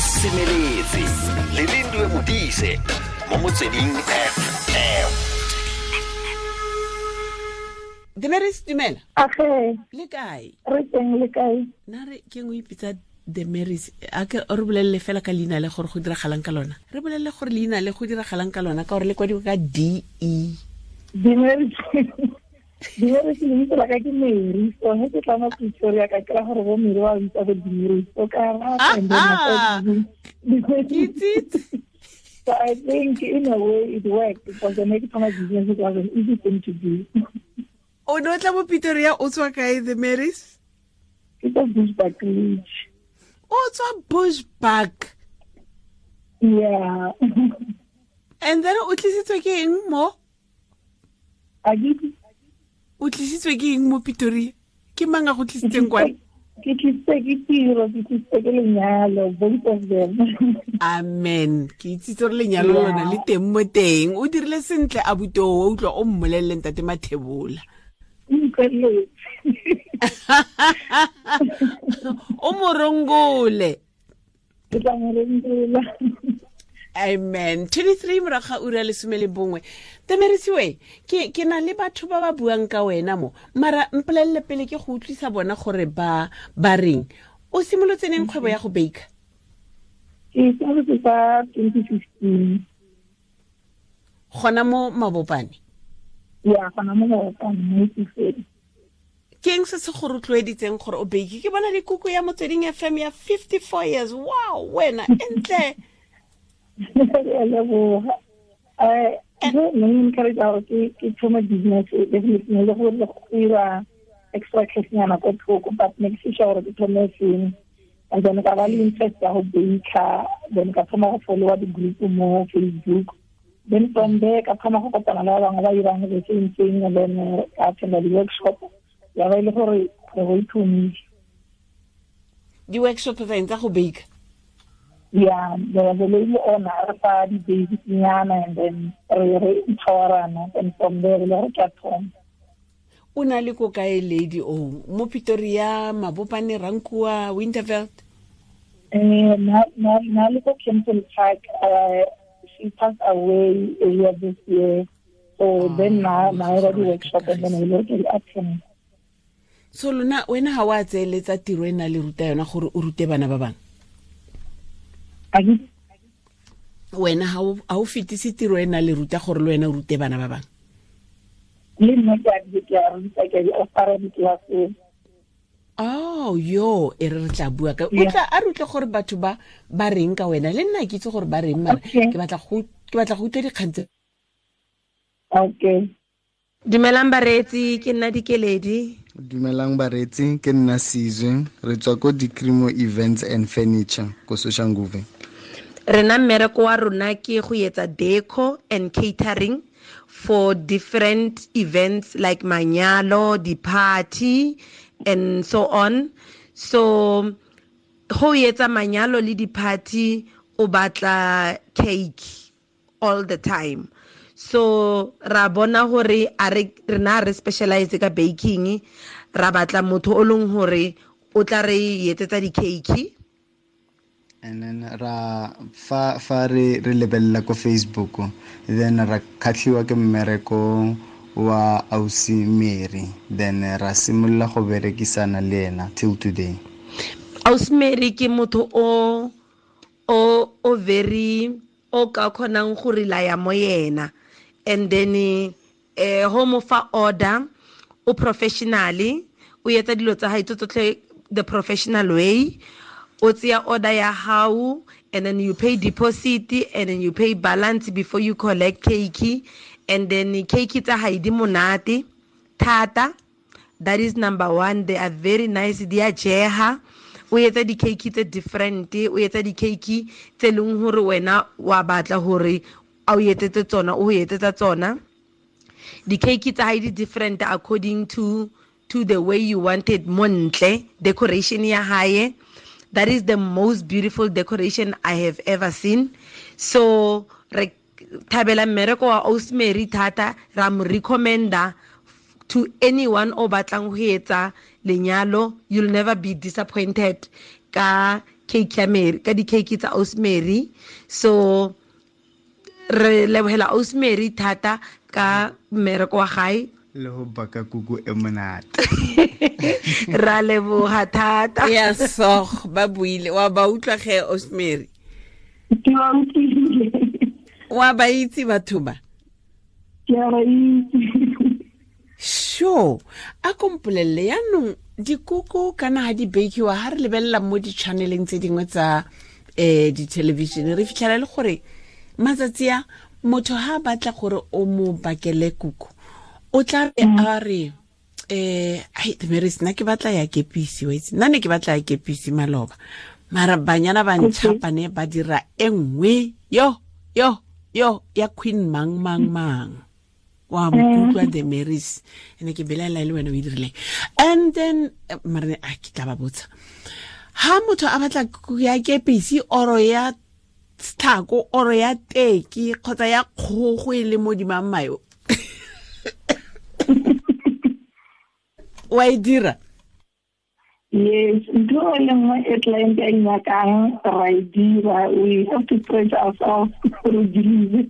Semeletse le Lindiwe Modise mo Motsweding FM. Demeris, dumela. Age. Le kae? Re teng, le kae? Na re ke ngwe ipitsa Demeris, a ke re bolelele fela ka leina le gore go diragalang ka lona. Re bolelele gore leina le go diragalang ka lona ka gore le kwadiwa ka D E. Demeris. Demeris lebitso la ka ke Mary. So he ke tla mo Pretoria ka kry gore bo Mary ba bitsa bo Demeris. So ka ra and then So I think in a way it worked because the make my business, it was an easy thing to do. O ne o tla mo Pretoria o tswa kae, Demeris? Ke tswa Bushbuckridge. O tswa Bushbuck? Yeah. And then o tlisitswe ke eng mo? A ke O tlisitswe ke eng mo Pretoria? Ke mang a go tlisitseng kwane? Ke tlisitswe ke tiro, ke tlisitswe ke lenyalo, both of them. Amen. Ke itsitse gore lenyalo lona le teng mo teng. O dirile sentle abuti o, o utlwa o mmolelele ntate Mathebola. O morongole. Ke tla mo rongola. Amen. 23 morago ga ura lesome le bongwe. Temerisiwe, ke na le batho ba ba buang ka wena mo. Mara mpolelele pele ke go utlwisa bona gore ba reng. O simolotse neng kgwebo ya go baker? Ke simolotse ka 2015. Gona mo Mabopane? Ya, gona mo Mabopane, mo Itsoseng. Ke eng se se go rotloeditseng gore o bake? Ke bona le kuku ya Motsweding FM ya 54 years. Wow, wena, entle. Ke a leboga. Ke ne ke encourage gore ke thome business, definitely ne le gore go ira extra cash nyana ko thoko, but ne ke sure gore ke thome sengwe. And then ka ba le interest ya go baker, then ka thoma go followa di-group mo Facebook. Then from there ka thoma go kopana le ba bangwe ba irang the same thing, and then ka attenda di-workshop. Ya ba e le gore kgwebo e thomile. Di-workshop tsa eng, tsa go baker? Yeah, there was a lady on re fa di-basic nyana, and then re empowerana, and from there re le gore ke a thoma. O na le ko kae lady o? Mo Pretoria, Mabopane, Rankuwa, Winterveld? Na le ko Kempton Park. She passed away earlier this year. So then na era di-workshop and then we look at attend. So lona wena ha wa tseeletsa tiro e na le ruta yona gore o rute bana ba bangwe? Ake? Wena ha o fetise tiro e na le ruta gore le wena o rute bana ba bangwe? Le nna ke a di, ke a ruta, ke a di offera di-class. Oh, yo, e re re tla bua ka. O tla a re utlwe gore batho ba reng ka wena. Le nna ke itse gore ba reng, mara ke batla go utlwa dikgang tse. Dumelang bareetsi, ke nna Dikeledi. Dumelang bareetsi, ke nna Sizwe. Re tswa ko Dikrimo Events and Furniture ko Soshanguve. Rena mmereko wa rona ke go etsa deco and catering for different events like manyalo, di-party and so on. So go etsa manyalo le di-party o batla cake all the time. So ra bona hore a re rena re specialize ka baking, ra batla motho o leng hore o tla re etsetsa di-cake. And then ra fa re lebella ko Facebook, then ra khatlhiwa ke mmereko wa Ausi Mary, then ra simolola go berekisana le ena till today. Ausi Mary ke motho o very o ka kgonang go relaya mo yena, and then ho mo fa order, o professionally, o etsa dilo tsa hae tsotlhe the professional way. O tseya order ya hao, and then you pay deposit, and then you pay balance before you collect cake, and then cake tsa hae di monate thata. That is number one. They are very nice. Di a jeha. O etsa di-cake tse different, o etsa di-cake tse leng hore wena wa batla hore a o etsetse tsona, o etsetsa tsona. Di-cake tsa hae di different according to the way you want it. Montle decoration ya hae, that is the most beautiful decoration I have ever seen. So re thabela mmereko wa Ausi Mary thata, ra mo recommenda to anyone o batlang ho etsa lenyalo. You'll never be disappointed ka cake ya Mary, ka di-cake tsa Ausi Mary. So re lebohela Ausi Mary thata ka mmereko wa gae le go baka kuku e monate. Ra leboga thata. Ya so ba buile wa ba utlwa ge Ausi Mary. Ke ba utlwile. Wa ba itse batho ba? Ke a ba itse. Sure. A kompolelle yaanong dikuku kana ha di bakiwa ha re lebelela mo di-channeleng tse dingwe tsa di-television re fitlhela le gore matsatsi a motho ha batla gore o mo bakele kuku o tla be a re ai Damaris nna ke batla ya kepisi wa itse nna ne ke batla ya kepisi maloba mara banyana ba ntšhapane ba dira e nngwe yo yo yo ya queen mang mang mang wa mkutlwa Damaris ene ke belaela le wena o e dirileng. And then mara a ke tla ba botsa ha motho a batla ya kepisi oro ya tlhako oro ya teki kgotsa ya kgogo e le mo dimang mayo wa e dira? Yes, ntho e le nngwe e client a nyakang ra e dira. We have to stretch ourselves gore deliver.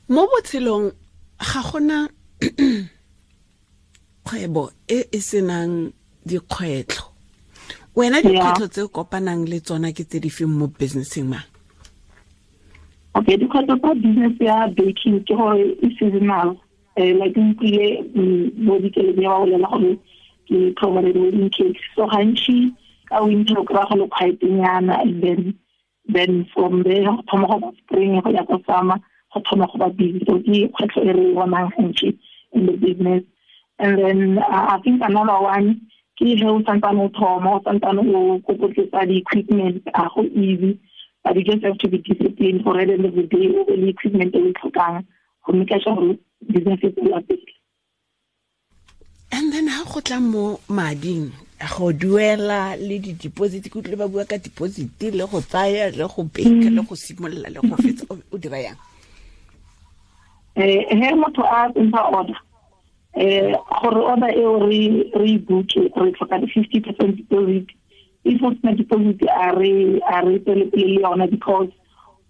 Mo botshelong ga gona kgwebo e e senang dikgwetlho. Wena dikgwetlho tse o kopanang le tsona ke tse di feng mo businesseng ma? Okay, dikgwetlho tsa business ya baking ke gore e seasonal. Like utlwile bo dikeledi ba bolela gore ke provided wedding cakes. So gantsi ka winter o kry-a go le quiet-nyana, and then from there go thoma go ba spring go ya ko summer go thoma go ba busy. So ke kgwetlho e re bonang gantsi in the business. And then I think another one ke ge o santsane o thoma o santsane o kokotletsa di-equipment, a go easy, but you just have to be disciplined for at the end of the day o be le equipment e o e tlhokang go make sure gore business e tswela pele. And then ha go tla mo mading go duela le di-deposit, ke utlwile ba bua ka deposit le go tsaya le go beka le go simolola le go fetsa, o dira yang? He motho a ntsha order, gore order eo re e book-e re tlhoka di-50% deposit. If o sena deposit a re tswele pele le yona, because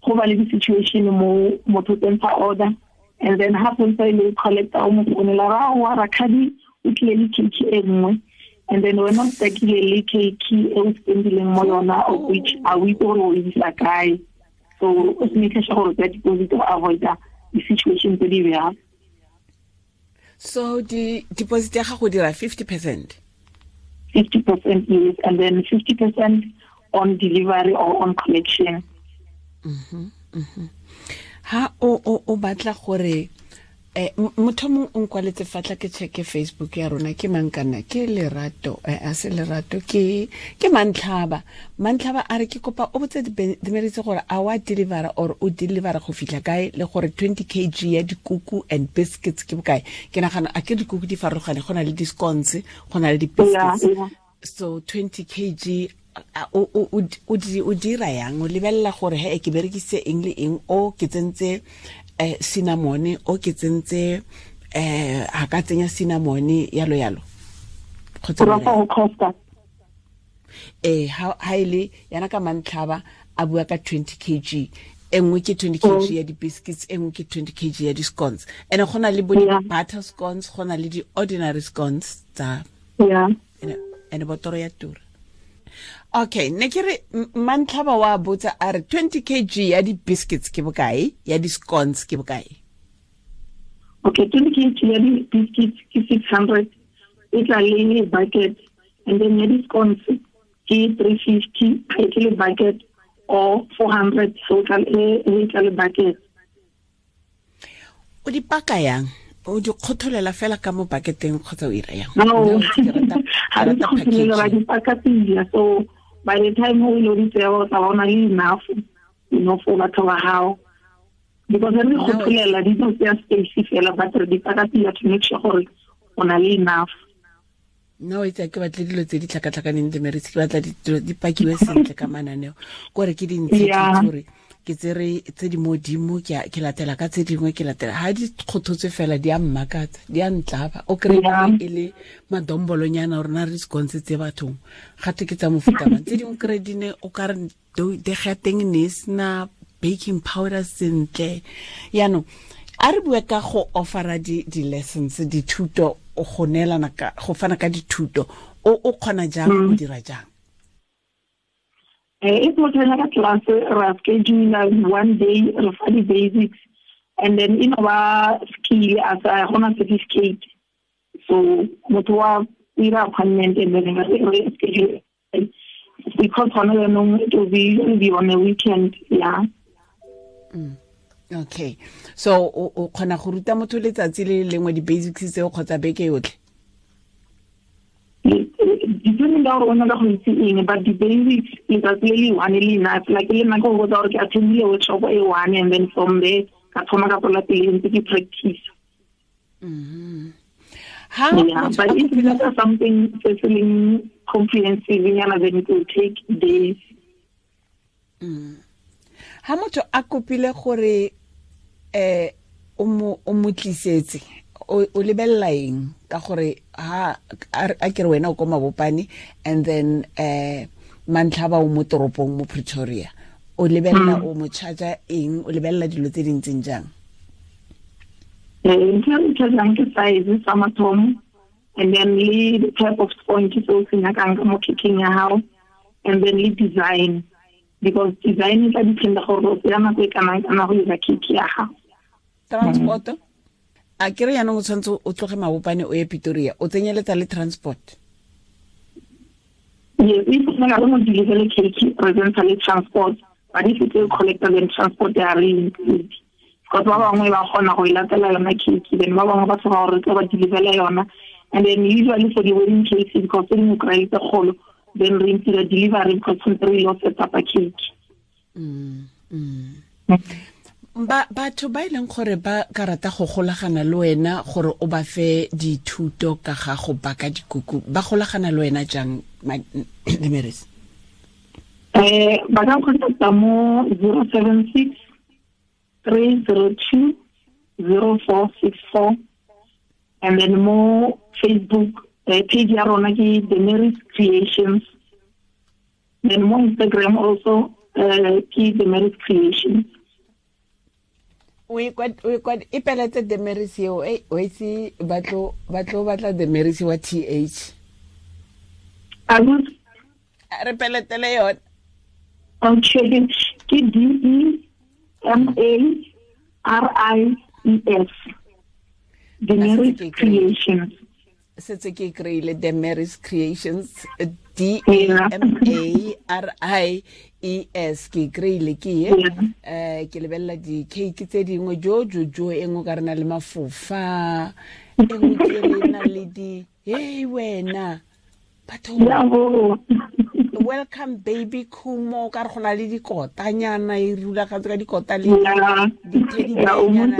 go ba le di-situation mo motho o tsentsha order and then ha sentse e le collector o mo founela ra wa rakhadi o tlile le cake e nngwe, and then wena o stakile le cake e o spendileng mo yona, of which a o itse gore o e isa kae. So o se make sure gore o tsaya deposit go avoida di-situation tse di bjalo. So di deposit ya gago dira 50%? 50% yes, and then 50% on delivery or on collection. Ha o batla gore motho mongwe o nkwaletse fatla ke checke Facebook ya rona ke mang kana ke Lerato a se Lerato ke Mantlhaba. Mantlhaba a re ke kopa o botse Damaris gore a wa deliver or o deliver go fitlha kae le gore 20 kg ya dikuku and biscuits ke bokae. Ke nagana a ke dikuku di farologane, go na le di-scones, go na le di-biscuits. So 20 kg o dira yang? O lebelela gore he ke berekise eng le eng, o ke tsentse cinnamon, o ke tsentse a ka tsenya cinnamon yalo yalo kgotsa go costa ha ile yana ka Mantlhaba a bua ka 20 kg e nngwe ke 20 kg ya di-biscuits, e nngwe ke 20 kg ya di-scones, and go na le bo di-butter scones, go na le di-ordinary scones tsa and botoro ya tura. Okay, ne ke re Mantlhaba wa botsa a re 20 kg ya di-biscuits ke bokae, ya di-scones ke bokae? Okay, 20 kg ya di-biscuits ke 600, e tla le bucket, and then ya di-scones ke 350, e tle le bucket, or 400, so e tla le bucket. O di paka yang? O di kgotholela fela ka mo bucketeng kgotsa o ira yang? No, ha re kgotholela, ba di paka pila. So by the time o lo di tsaya o tla bona le enough, you know, for batho ba hao. Because re kgotholela di tlo tsaya space fela, but re di paka pila to make sure gore o na le enough. No, itse ke batle dilo tse di tlhakatlhakaneng Damaris, ke batla dilo di pakiwe sentle ka mananeo, kore ke dintsi gore Ke tsere tse di modimo, ke latela ka tse dingwe, ke latela ha di kgothotswe fela, di a mmakatsa, di a ntlaba. O kry e le madombolonyana gore na re sconse tse bathong gate ke tsa mofuta mang. Tse dingwe kry di ne o ka re dega teng ne e sena baking powder sentle. Yaanong a re bue ka go offera di-lessons, dithuto, go neelana ka go fana ka dithuto, o kgona jang, o dira jang? If motho a nyaka class, ra schedule one day, re fa di-basics, and then e no ba skill as a gona certificate. So motho wa ira appointment and then re schedule, because gona jaanong it will be on a weekend, yeah. Okay, so o kgona go ruta motho letsatsi le lengwe di-basics tseo kgotsa beke yotlhe? Depending ka gore o nyaka go itse eng, but the-basics letsatsi le le one le enough. Like le nna ke go botsa gore ke attendile workshop e one, and then from there ka thoma ka tswela pele ntse ke practice. Ha Yeah, but if you look at something se se leng comprehensive nyana, then it will take days. Ha motho a kopile gore o mo tlisetse, o lebelela eng? Ka gore ha a ke re wena o ko Mabopane, and then Mantlhaba o mo toropong mo Pretoria, o lebelela o mo charge eng, o lebelela dilo tse di ntseng jang? Ntho e re chargeang ke size sa mathomo, and then le the type of sponge se o se nyakang ka mo cakeng ya hao, and then le design, because design e tla dependa gore o tsaya nako e kanang kana go dira cake ya gago. Transport, a ke re jaanong o tshwanetse o tloge Mabopane o ye Pretoria, o tsenyeletsa le transport? Yes, if o nyaka go deliver cake, re tsentsha le transport, but if it's collector, then transport ya re include, because ba bangwe ba kgona go e latela yona cake, then ba bangwe ba tshoga gore re tlo ba deliverela yona. And then usually for the wedding cakes, because tse dingwe kry tse kgolo, then re ntira delivery because tshwanetse re ile set up a cake. Batho ba e leng gore ba ka rata go golagana le wena gore o ba fe dithuto ka ga go baka dikuku, ba golagana le wena jang, Damaris? Ba ka contacta mo 076 302 0464, and then mo Facebook page ya rona ke Damaris Creations, then mo Instagram also ke Damaris Creations. O e peletse Damaris eo, o itse ba tlo batla Damaris wa TH. Re peletele yone. Okay, ke DEMARIES, Damaris Creations. Setse ke kry-ile Damaris Creations, DAMARIES, ke kry-ile ke ye. Ke lebelela di-cake tse dingwe jo e nngwe ka re na le mafofa, e nngwe ke re na le di, hey wena batho, welcome baby Khumo, ka re go na le dikotanyana, e rulagantswe ka dikota le di-teddy-bearnyana,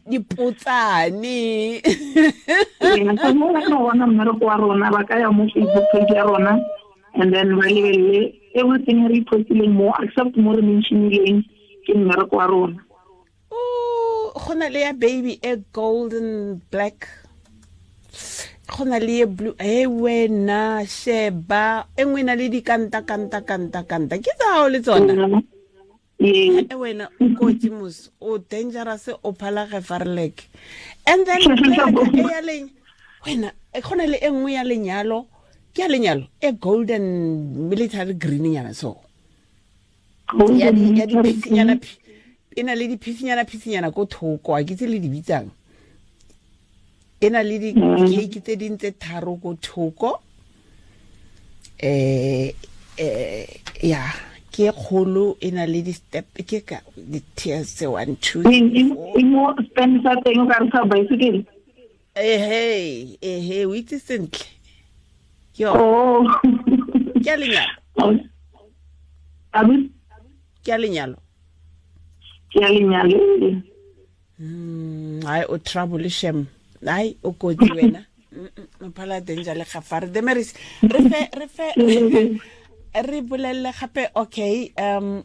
dipotsane. Mo ba ka bona mmereko wa rona, ba ka ya mo Facebook page ya rona, and then ba lebelele everything re postileng mo, except mo re mentionileng ke mmereko wa rona. Go na le ya baby e golden black, go na le e blue, e wena sheba e nngwe na le dikanta kanta kanta kanta, ke tsa hao le tsona. E wena o kotsi mos, o dangerous, o phala gefarlek. And then e ya leng wena, go na le e nngwe ya lenyalo, ke ya lenyalo e golden military green nyana, so ya di e na le diphisinyana phisinyana ko thoko, a ke tse le di bitsang, e na le di-cake tse ding tse tharo ko thoko. Ya ke kgolo, e na le di-step, ke ka di-tiers tse 1 2 3 4. E mo stand sa teng o ka re sa bicycle. Ehe, o itse sentle. Yo. Ke a lenyalo. Ke a lenyalo. Ke a lenyalo. Ai o trouble shem. Ai o kotsi wena. O phala danger le gafare. Damaris, re fe Re bolelele gape, okay,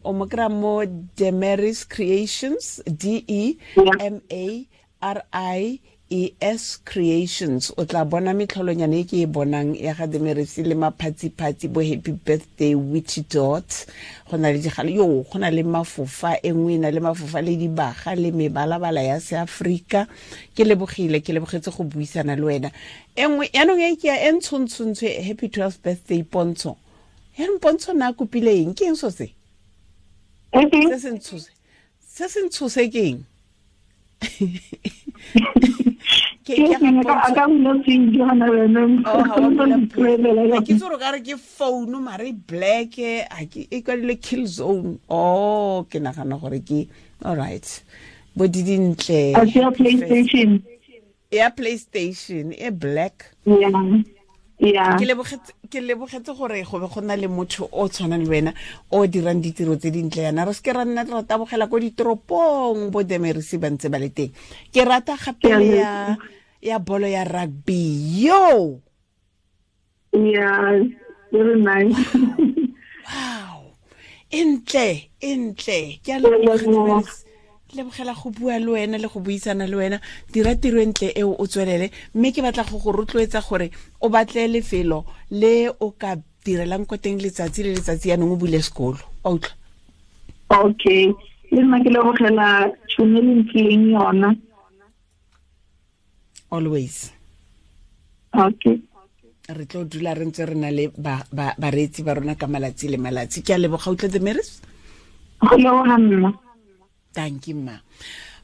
o mo kry-a mo Demaries Creations, D E M A R I E S Creations. O tla bona metlholonyane e ke e bonang ya ga Demaries le maphatsiphatsi, bo happy birthday witchy dot. Go na le digalo, yo go na le mafofa, e nngwe e na le mafofa le dibaga le mebalabala ya seAfrika. Ke lebogile, ke lebogetse go buisana le wena. E nngwe yaanong e ke ya e ntshontshontsho, happy 12th birthday Pontsho. Yaanong Pontsho na kopile eng? Ke eng so se? Se se ntshose. Se se ntshose ke eng? Ke itse gore ka re ke phone mare black, a ke e kwadile kill zone. Oh, ke nagana gore ke all right. Bo di dintle. Ya PlayStation. Ya PlayStation e black. Yeah. Yeah. Ke lebogetse gore go be go na le motho o tshwanang le wena o dirang ditiro tse dintle yana. Re seke ra nna re tabogela ko ditoropong bo Demaries ba ntse ba le teng. Ke rata gape le ya bolo ya rugby. Yo. Yeah, very nice. Wow. Entle, entle. Ke a lebogela go bua le wena le go buisana le wena. Dira tiro entle eo, o tswelele. Mme ke batla go go rotloetsa gore o batle lefelo le o ka direlang ko teng letsatsi le letsatsi, yaanong o bule sekolo. Wa utlwa? Okay. Le nna ke lebogela tšhono e le mphileng yona. Always. Okay. Re tlo dula re ntse re na le bareetsi ba rona ka malatsi le malatsi. Ke a leboga, utlwa Demaries? Go leboga nna. Thank you, ma.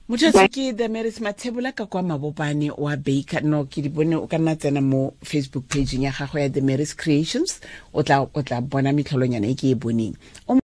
Motho ke Demaries Mathebula ka kwa Mabopane wa Baker. No, ke di bone, o ka nna tsena mo Facebook page ya gagwe ya Demaries Creations. O tla bona metlholonyana e ke e boneng.